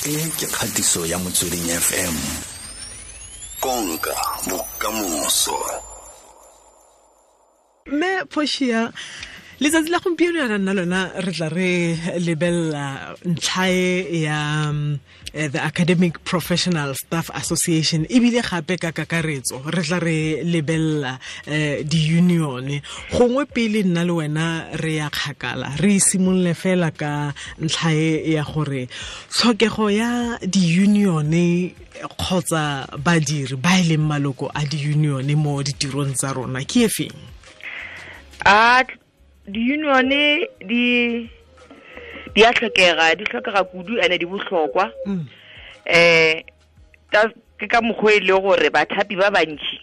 E ke kgatiso ya Motsweding FM. Konka bokamoso. Mme Portia, letsatsi la gompieno yana nna lona re tla re lebelela ntlha e ya the Academic Professional Staff Association, ebile gape ka kakaretso re tla re lebelela di-union. Gongwe pele nna le wena re ya kgakala, re simolole fela ka ntlha e ya gore tlhokego ya di-union kgotsa badiri ba e leng maloko a di-union mo ditirong tsa rona ke e feng? A di-union di a tlhokega, di tlhokega kudu ene di bohlokwa. Ke ka mokgwa e le gore bathapi ba bantši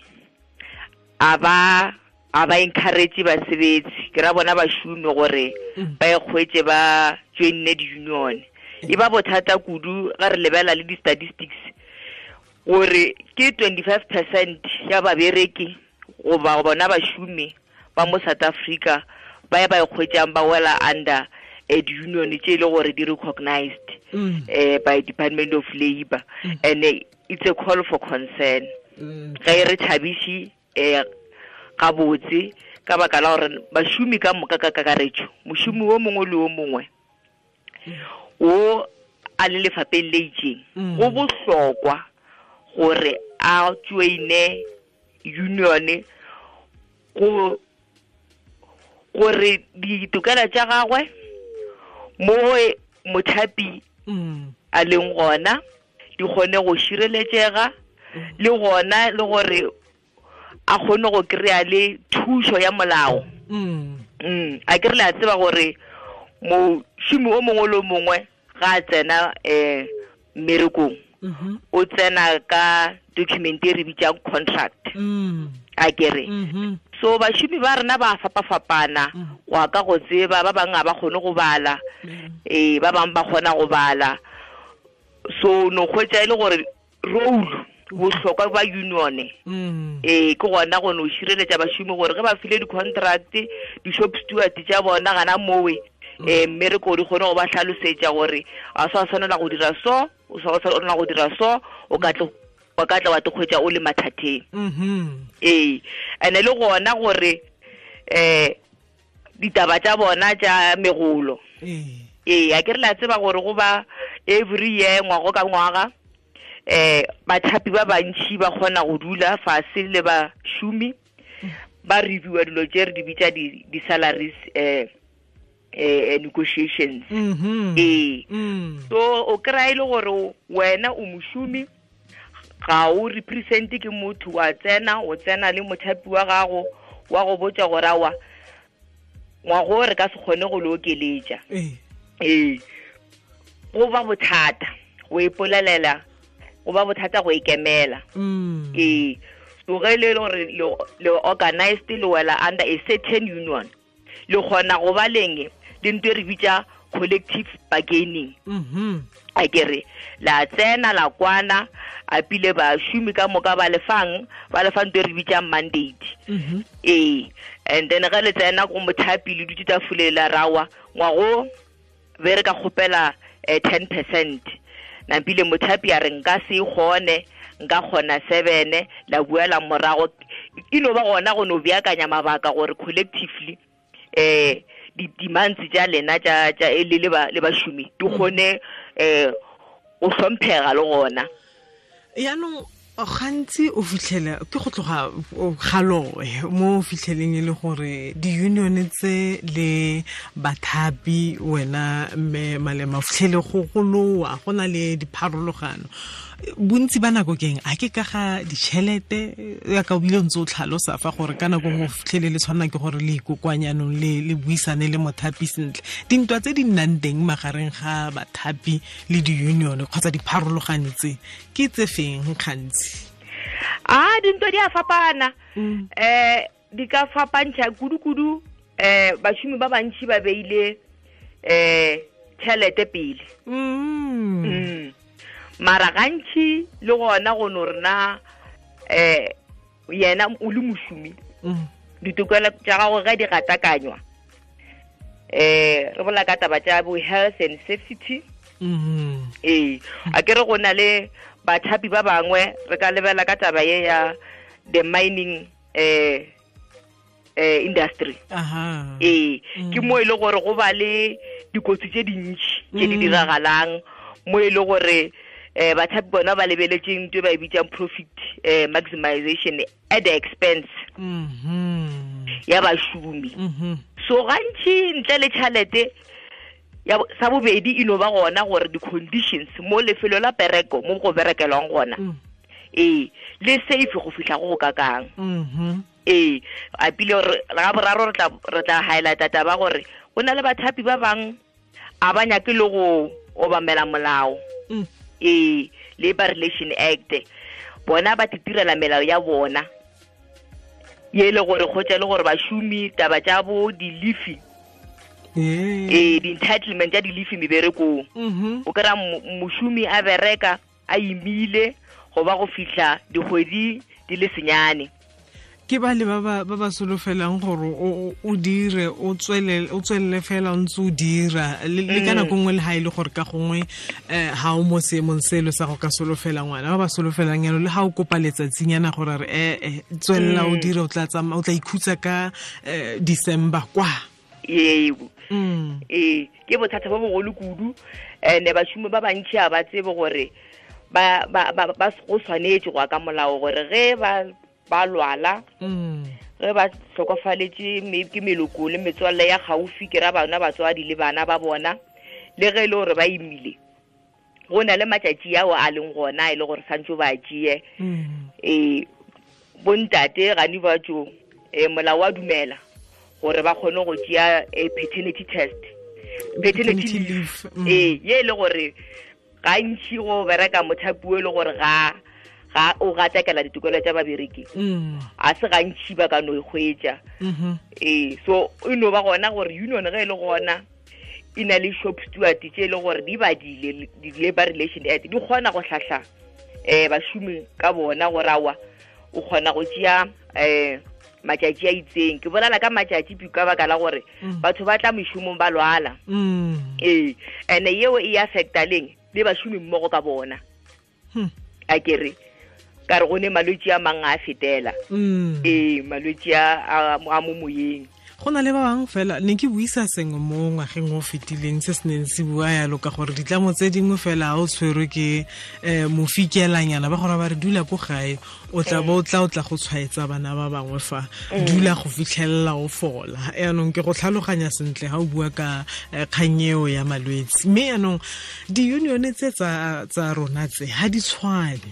a ba encourage basebetsi, ke ra bona bašomi gore ba ikgwetše ba joinne di-union. E ba bothata kudu ga re lebela le di-statistics gore ke 25% ya babereki goba bona bašomi ba mo South Africa ba ba ikgwetšang ba wela under di-union tše e le gore di recognized by Department of Labor, and it's a call for concern. Ga e re thabiše gabotse ka baka la gore bašomi ka moka ka kakaretšo, mošomi wo mongwe le wo mongwe wo a le lefapeng le itseng, go bohlokwa gore a joine union go gore ditokelo tša gagwe mo mothapi a leng gona di kgone go šireletšega, le gona le gore a kgone go kry-a le thušo ya molao. A ke re le a tseba gore mošomi o mongwe le o mongwe ga a tsena mmerekong, o tsena ka document e re bitsang contract. A ke re so bašomi ba rena ba fapafapana go ka go tseba, ba bangwe ga ba kgone go bala, ba bangwe ba kgona go bala. So no kgwetsa e le gore role bohlokwa ba union ke gona go no šireletša bašomi gore ge ba file di-contract, di-shop steward tša bona gana mowe mmereko di kgone go ba hlalosetša gore a sa tshwanela go dira so, o sa tshwanela go dira so, o ka tla wa te kgwetša o le mathateng. Ene le gona gore ditaba tša bona tša megolo, a ke re la tseba gore go ba every year, ngwago ka ngwaga, bathapi ba bantši ba kgona go dula fase le bašomi ba reviewa dilo tše re di bitša di-salaries negotiations. So o kry-a e le gore wena o mošomi, ga o represente ke motho, wa tsena o tsena le mothapi wa gago wa go botša gore awa ngwago re ka se kgone go le okeletša. Go ba bothata go ipolelela, go ba bothata go ikemela. So ge le gore le organized, le wela under a certain union, le kgona go ba leng le ntho e re bitša collective bargaining. A ke re la tsena la kwana, a pile bašomi ka moka ba lefang ntho e re bitsang mandate. And then ge le tsena go mothapi le dutse tafole la rawa ngwago be re ka kgopela 10%, nampile mothapi a re nka se kgone, nka kgona 7, la buela morago. E no ba gona go no beakanya mabaka gore collectively di-demands tša lena tša le bašomi di kgone go hlomphega le gona. Yaanong gantsi o fitlhela ke go tloga galoe mo o fitlheleng e le gore di-union tse le bathapi, wena mme Malema, o fitlhele go goloa go na le dipharologano. Bontsi ba nako keng a ke ka ga ditšhelete, ya ka o bile ntse o tlhalosa fa gore ka nako nngwe o fitlhele le tshwanela ke gore le ikokwanyanong le buisane le mothapi sentle. Dintwa tse di nnang teng magareng ga bathapi le di-union kgotsa dipharologano tse ke tse feng gantsi? A dintwa di a fapana. Di ka fapantšha kudu-kudu. Bašomi ba bantši ba beile tšhelete pele. Mara gantši le gona go no rena yena o le mošomi, ditokelo tša gago ge di gatakanywa, re bolela ka taba tša bo health and safety. Ee, a ke re go na le bathapi ba bangwe re ka lebela ka taba ye ya the mining industry. Ee, ke mo e le gore go ba le dikotsi tse dintši tse di diragalang, mo e le gore bathapi bona ba lebeletseng ntho e ba e bitsang profit maximization at the expense ya bašomi. So gantši ntle le tšhalete ya sa bobedi e no ba gona gore di-conditions mo lefelo la pereko mo go berekelwang gona ee le safe go fihla go go kakang. Ee, a pile gore ga boraro re tla highlighta taba gore go na le bathapi ba bang a ba nyake le go obamela molao. Ee, Labor Relation Act, bona ba titirela melao ya bona ye le gore kgotsa le gore bašomi taba tša bo di-leafy ee di-entitlement tša di-leafy meberekong. O kry-a mošomi a bereka a imile go ba go fihla dikgwedi di le senyane. Ke ba le ba ba solofelang gore o dire o tswelele fela o ntse o dira le ka nako nngwe le ha e le gore ka gongwe ha o mo seemong selo sa go ka solofela ngwana, ba ba solofelang yalo le ha o kopa letsatsinyana gore re tswelela o dire o tla tsamaya o tla ikhutsa ka December kwa. Yebo. Ee, ke bothata bo bogolo kudu, ene bašomi ba bantši a ba tsebe gore ba go swanetše go ya ka molao gore ge ba lwala, ge ba hlokofaletše ke meloko le metswalle ya gaufi, ke ra bana batswadi le bana ba bona, le ge e le gore ba imile go na le matšatši ao a leng gona e le gore santse ba tšee. Ee, bontate gane ba tšo molao wa dumela gore ba kgone go tšea paternity test, paternity leave. Ee, ye e le gore gantši go bereka mothapi o e le gore ga o gatakela ditokelo tša babereki, a se gantši ba ka no e hwetša. Ee, so e no ba gona gore union ge e le gona e na le shop steward tše e le gore di badile di-Labor Relation Act, di kgona go hlahla bašomi ka bona gore awa o kgona go tšea matšatši a itseng. Ke bolela ka matšatši ka baka la gore batho ba tla mešomong ba lwala. Ee, ene yeo e affecta leng le bašomi mmogo ka bona. A kere ka re go ne malwetši a mang a fetela. Ee, malwetši a mo moyeng. Go na le ba bangwe fela ne ke buisa sengwe mo ngwageng o fetileng se se neng se bua yalo ka gore ditlamo tse dingwe fela ha o tshwerwe ke mofikelanyana ba gore ba re dula ko gae o tla bo o tla go tshwaetsa bana ba bangwe fa dula go fitlhelela o fola. Yaanong ke go tlhaloganya sentle ha o bua ka kgang eo ya malwetse. Mme yaanong di-union tse tsa rona tse ha di tshwane.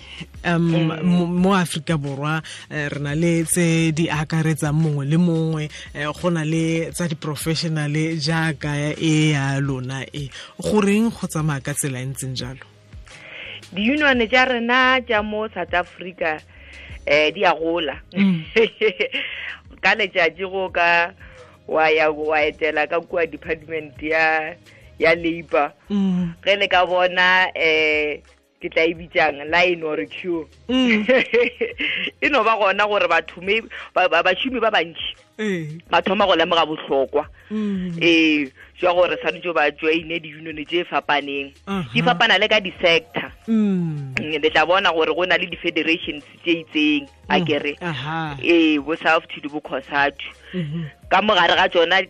Mo Afrika Borwa re na le tse di akaretsang mongwe le mongwe, go na le tsa di-professional jaaka e ya lona e goreng go tsamaya ka tsela e ntseng jalo? Di-union tša rena tša mo South Africa di a gola. Ka letšatši go ka wa ya wa etela ka kua department ya labor, ge le ka bona ke tla e bitsang line or queue, e no ba gona gore batho bašomi ba bantši ba thoma go lemoga bohlokwa ee jwa gore swanetše ba joine di-union tše fapaneng. Di fapana le ka di-sector. Le tla bona gore go na le di-federations tše itseng a kere ee bo SAFTU le bo COSATU. Ka mogare ga tšona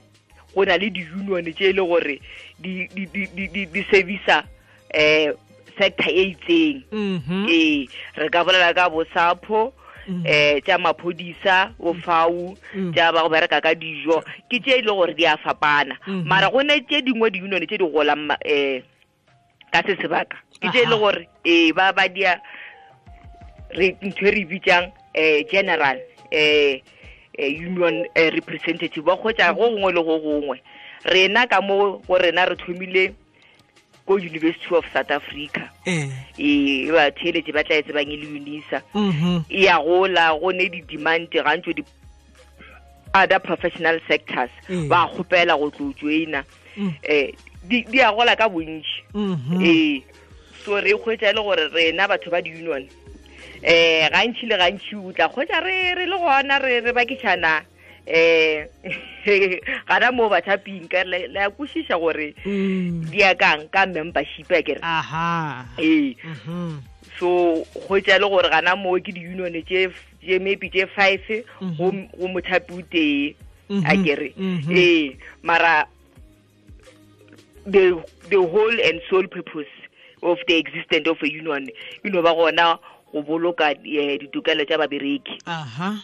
go na le di-union tše e le gore di servisa sector e itseng. Ee, re ka bolela ka bo SAPO, tša maphodisa, bo FAU, tša ba go bereka ka dijo, ke tše e le gore di a fapana. Mara go ne tše dingwe di-union tše di golang ka se sebaka, ke tše e le gore ee ba dia re ntho e re bitsang general union representative, ba kgotsa go gongwe le go gongwe. Rena ka mo go rena re thomile ko University of South Africa. Ee, ba theeletše ba tla e tsebang e le UNISA. E ya gola, go ne di-demand gantšo di other professional sectors ba kgopela go tlo joina. Di a gola ka bontši. Ee, so re kgwetša e le gore rena batho ba di-union gantši le gantši o tla kgwetša re le gona re bakišana Gana mo bathaping ka le a kwešiša gore di ya kang ka membership a kere. Aha. So go tša le gore gana mo ke di-union tše maybe tše 5 go mothapi o tee a kere. Mara the whole and sole purpose of the existence of a union you know ba gona go boloka ditokelo tša babereki. Aha.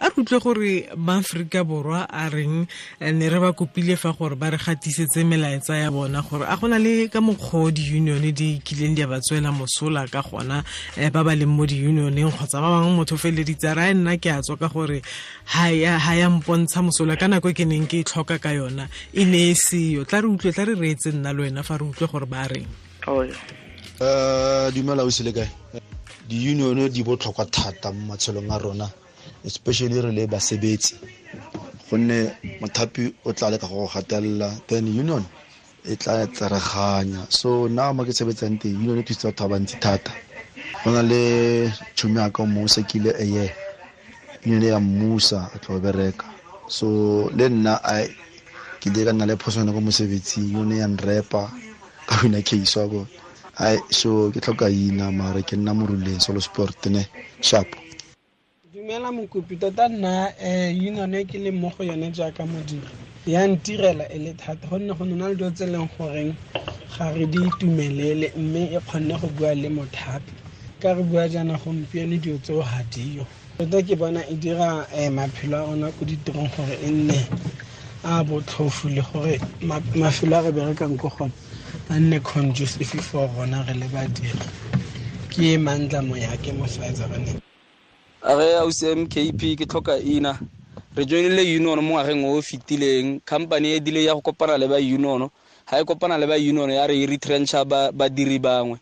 A re utlwe gore maAfrika Borwa a reng, ne re ba kopile fa gore ba re gatisetse melaetsa ya bona gore a gona le ka mokgwa di-union di kileng di a ba tswela mosola ka gona, ba ba leng mo di-unioneng kgotsa ba bangwe motho feleditse a re nna ke a tswa ka gore ha ya mpontsha mosola ka nako e ke neng ke e tlhoka ka yona e ne e seyo. Tla re utlwe, tla re reetse nna le wena fa re utlwe gore ba reng. Dumela o sele kae? Di-union di botlhokwa thata mo matshelong a rona, especially re le basebetsi, gonne mothapi o tla leka go gatelela, then union e tla tsereganya. So nna mo ke sebetsang teng, union e thusitse batho ba bantsi thata. Go na le tšhomi ya ka mo sekile eye, union ya mmusa a tlo bereka. So le nna ke ile ka nna le phoswana ko mosebetsing, union ya nrepa ka wina case wa ko. Ai, so ke tlhoka ina mara ke nna moruleng solo sport ne sharp. Dumela mokopi, tota nna union e ke leng mo go yone jaaka modiri ya ntirela e le thata, gonne go nna le dilo tse e leng goreng ga re di itumelele, mme e kgonne go bua le mothapi. Ka re bua jaana gompieno dilo tseo ga dio. Tota ke bona e dira maphelo a rona ko ditirong gore e nne a botlhofo, le gore mafelo a re berekang ko gone a nne conducive for rona re le badiri. Ke Mandla Moyake mo Schweizerane. A re ausi MKP ke tlhoka ina. Re joinile union mo ngwageng o fetileng, company e dile ya go kopana le ba union. Ha e kopana le ba union ya re e retrencha badiri bangwe.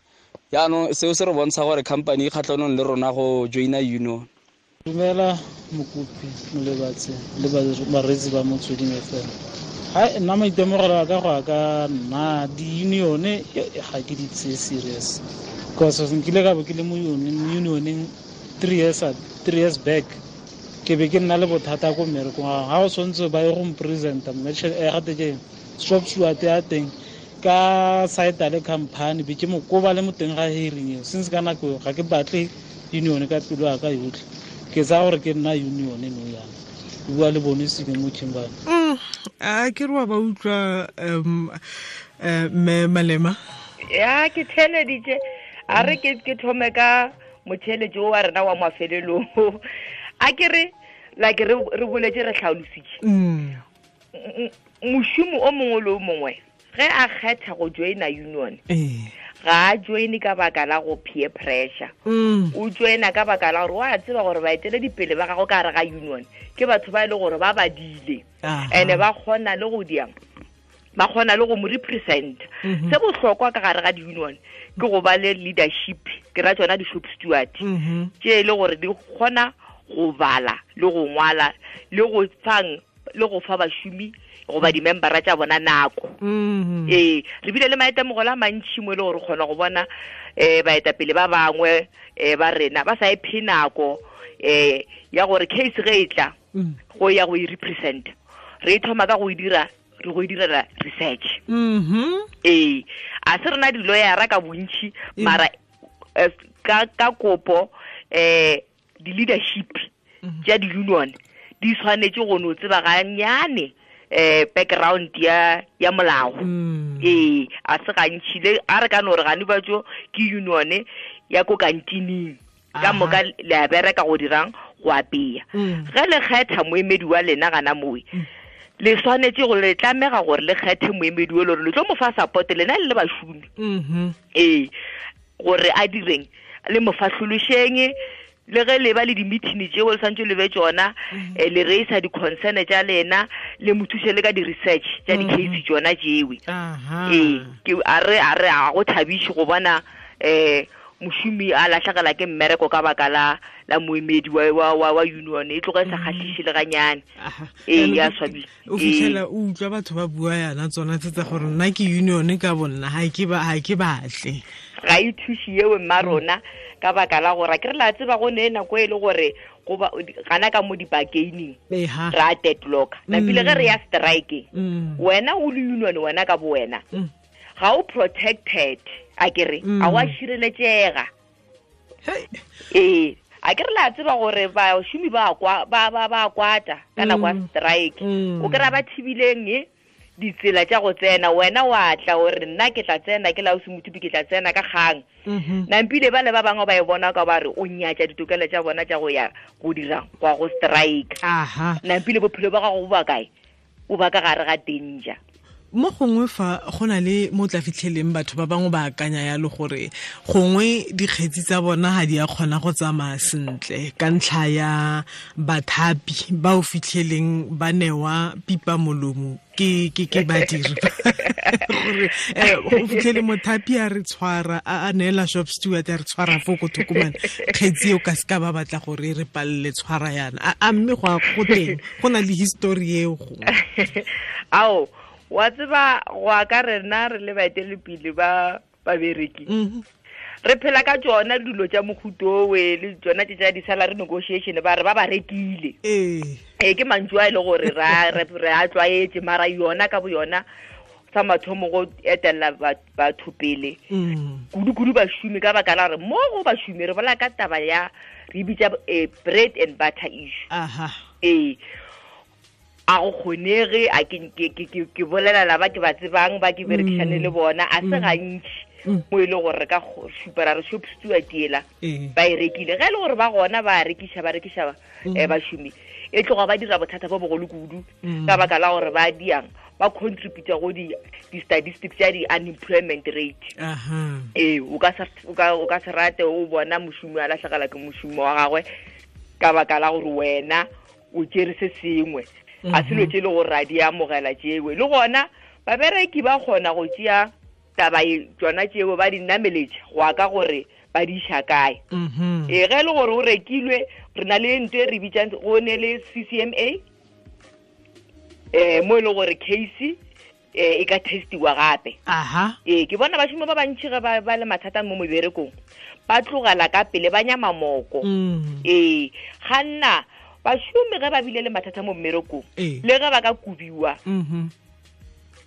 Jaanong seo se re bontsha gore company e kgatlhanong le rona go joina union. Dumela mokopi molebatse le bareetsi ba Motsweding FM. Ha nna maitemogelo a ka go ya ka nna di-union ga ke di tseye serious, because nkile ka bo ke le mo unioneng 3 years back, ke be ke nna le bothata ko mmerekong. Ga o tshwanetse ba ye go mpresenta mme gate ke shop steward ya teng ka site le company, be ke mo koba le mo teng ga hearing eo. Since ka nako eo ga ke batle union ka pelo ya ka yotlhe, ke tsaya gore ke nna union no yana. Bua le bone seke mo Kimberley. A ke re wa ba utlwa mme Malema. Ya ke theleditše, a re ke thome ka motheletši o wa rena wa mafelelong. A ke re like re boletse re tlhalositše. Mošomi o mongwe le o mongwe ge a kgetha go joina union, ga a joine ka baka la go peer pressure. O joina ka baka la gore wa tseba gore baeteledipele ba gago ka gare ga union ke batho ba e le gore ba badile, and ba kgona le go diang, ba kgona le go mo represent. Se bohlokwa ka gare ga di-union ke go ba le leadership, ke ra tsona di-shop steward tše e le gore di kgona go bala le go ngwala le go fang le go fa bašomi goba di-membera tša bona nako. Re bile le maitemogelo a mantši mo e le gore kgona go bona baetapele ba bangwe ba rena ba sa iphe nako ya gore case ge e tla go ya go e represent, re e thoma ka go e dira, re go e direla research. A se rena di-lawyera ka bontši, mara ka kopo di-leadership tša di-union di tshwanetse go no tseba ganyane background ya molao. A se gantši le a re ka no re gane ba tso ke union ya ko kantining ka moka le a bereka go dirang go apea. Ge le kgetha moemedi wa lena gana mowe, le tshwanetse go le tlamega gore le kgethe moemedi o le gore le tlo mo fa support lena le le bašomi. Gore a direng le mo fahlološeng, le ge le ba le di-meeting tšeo le santse le be tšona, le raisa di-concern tša lena, le mo thuse le ka di-research tša di-case tšona tšewe. Ke a re a go thabiše go bona mošomi a latlhegela ke mmereko ka baka la moemedi wa union, e tloga e sa kgahliše le ganyane. Ya swabile. O fitlhela o utlwa batho ba bua yana tsona tse tsa gore nna ke union ka bonna, ha ke batle. Ga e thuše yeo mma rona ka baka la gore ke re la tseba go ne nako e le gore goba gana ka mo di-bargaining ra deadlock napile ge re ya strike wena o le union wena ka bo wena ga o protected a ke re a wa šireletšega. Ee, a ke re la tseba gore bašomi ba kwata ka nako ya strike o kry-a ba thibileng ditsela tša go tsena, wena wa tla gore nna ke tla tsena ke la o semothupi ke tla tsena ka kgang. Nampile ba le ba bangwe ba e bona ka ba re o nyatša ditokelo tša bona tša go ya go dira kwa go strike. Nampile bophelo ba gago bo ba kae? O ba ka gare ga danger. Mo gongwe fa go na le mo tla fitlheleng batho ba bangwe ba akanya yalo gore gongwe dikgetsi tsa bona ga di a kgona go tsamaya sentle ka ntlha ya bathapi ba o fitlheleng ba newa pipa molomo ke badiri gore go fitlhele mothapi a re tshwara a neela shop steward a re tshwara fo ko thokomane kgetsi eo ka seka ba batla gore re palele tshwara yana. A mme go teng go na le history eo gongwe? Ao, wa tseba go ka rena re le baeteledipele ba babereki re phela ka tsona dilo tša mohutowe le tsona tše tša di-salary negotiation ba re ba ba rekile. Ee, ke mantšu a e le gore re a tlwaetše, mara yona ka bo yona sa mathomo go etelela batho pele kudu-kudu bašomi ka baka la gore mo go bašomi re bola ka taba ya re bitša bread and butter issue. Ee, a go kgonege a ke bolela ba ke ba tsebang ba ke berekišane le bona a se gantši mo e le gore re ka šupa ra re shop steward ela ba e rekile. Ge e le gore ba gona ba rekiša bašomi e tloga ba dira bothata bo bogolo kudu ka baka la gore ba diang ba contributa go di-statistics tša di-unemployment rate. Ee, o ka se rate o bona mošomi a latlhegela ke mošomo wa gagwe ka baka la gore wena o tšere se sengwe. A selo tše le gore ra di amogela tšewe. Le gona babereki ba kgona go tšea taba tsona tšeo ba di nameletša go ya ka gore ba di iša kae. Ee, ge e le gore o rekilwe re na le ntho e re bitsang go ne le CCMA mo e le gore case e ka testiwa gape. Ee, ke bona bašomi ba bantši ge ba le mathata mo meberekong ba tlogela ka pele ba nyama moko. Ee, ga nna bašomi ge ba bile le mathata mo mmerekong le ge ba ka kubiwa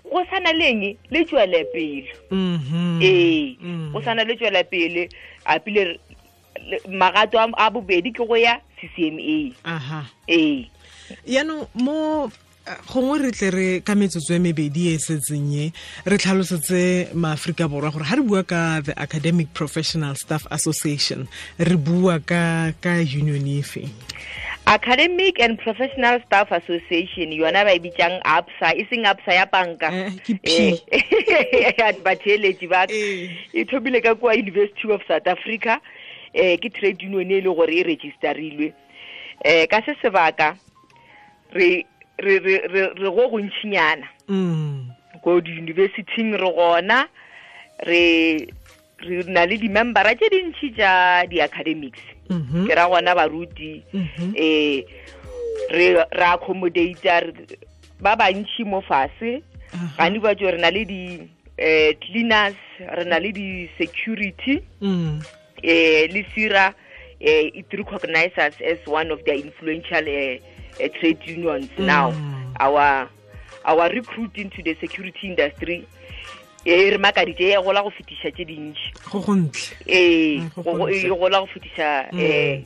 go sana leng le tšwele pele. Ee, go sana le tšwele pele a pile magato a bobedi ke go ya CCMA. Ee, yaanong mo gongwe re tle re ka metsotso e mebedi e setseng e re tlhalosetse maAforika Borwa gore ga re bua ka the Academic Professional Staff Association re bua ka union efe? Academic and Professional Staff Association yona ba e bitsang APSA, e seng APSA ya banka. Ke P. Batheeletši ba e thomile ka kua University of South Africa. Ke trade union e le gore e registerilwe. Ka se sebaka re go gontšinyana ko di-universityng re gona re na le di-membera tše dintši tša di-academics. Ke ra gona baruti re accommodata ba bantši mo fase gane ba tšo re na le di cleaners, re na le di-security le SIRA it recognizes us as one of their influential trade unions. Now our recruit into the security industry e re makaditše e gola go fetiša tše dintši go gontle. Ee, e gola go fetiša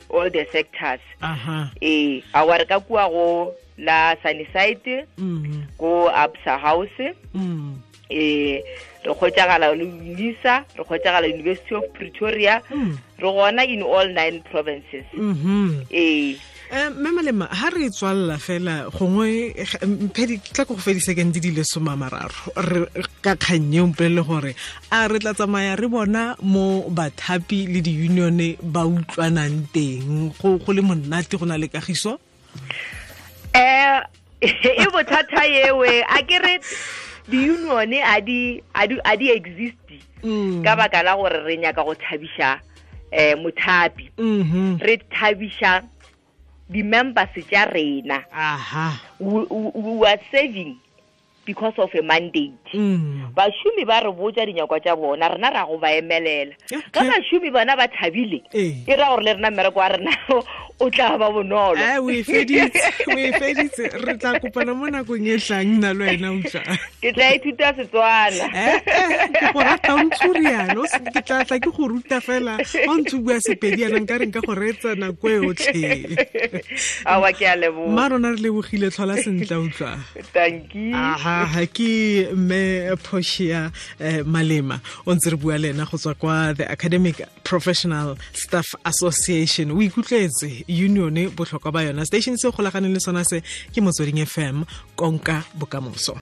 all the sectors. Ee, a re ka kua go la Sunnyside go ABSA House re kgotšagala le UNISA, re kgotšagala University of Pretoria, re gona in all 9 provinces. Ee. Mme Malema, ha re tswalla fela gongwe mphedi tla go fedisa ke ntse di le 30 re ka kgannye o mpolele gore a re tla tsamaya re bona mo bathapi le di-union ba utlwanang teng go le monate go na le kagiso? E bothata yewe a ke re di-union a di exist ka baka la gore re nyaka go thabiša mothapi. Re thabiša di-members tša rena. We are saving Because of a mandate. Bašomi ba re botsa dinyakwa tša bona, rena ra go ba emelela. Ka bašomi bona ba thabile, e ra gore le rena mmereko wa rena o tla ba bonolo. O e feditse. Re tla kopana mo nakong e tlang nna le wena, utlwa. Ke tla ithuta Setswana. Ke go rata o ntse o rialo, ke tla tla ke go ruta fela. Ga o ntse o bua Sepedi yana nka re nka go reetsa nako e otlhe. Awa, ke a leboga. Mma rona, re lebogile, tlhola sentle, utlwa. Tanki. Aha, ke mme Portia Malema o ntse re bua le ena go tswa kwa the Academic Professional Staff Association. O ikutlwetse union, botlhokwa ba yona. Station se golaganeng le sona se ke Motsweding FM, konka bokamoso.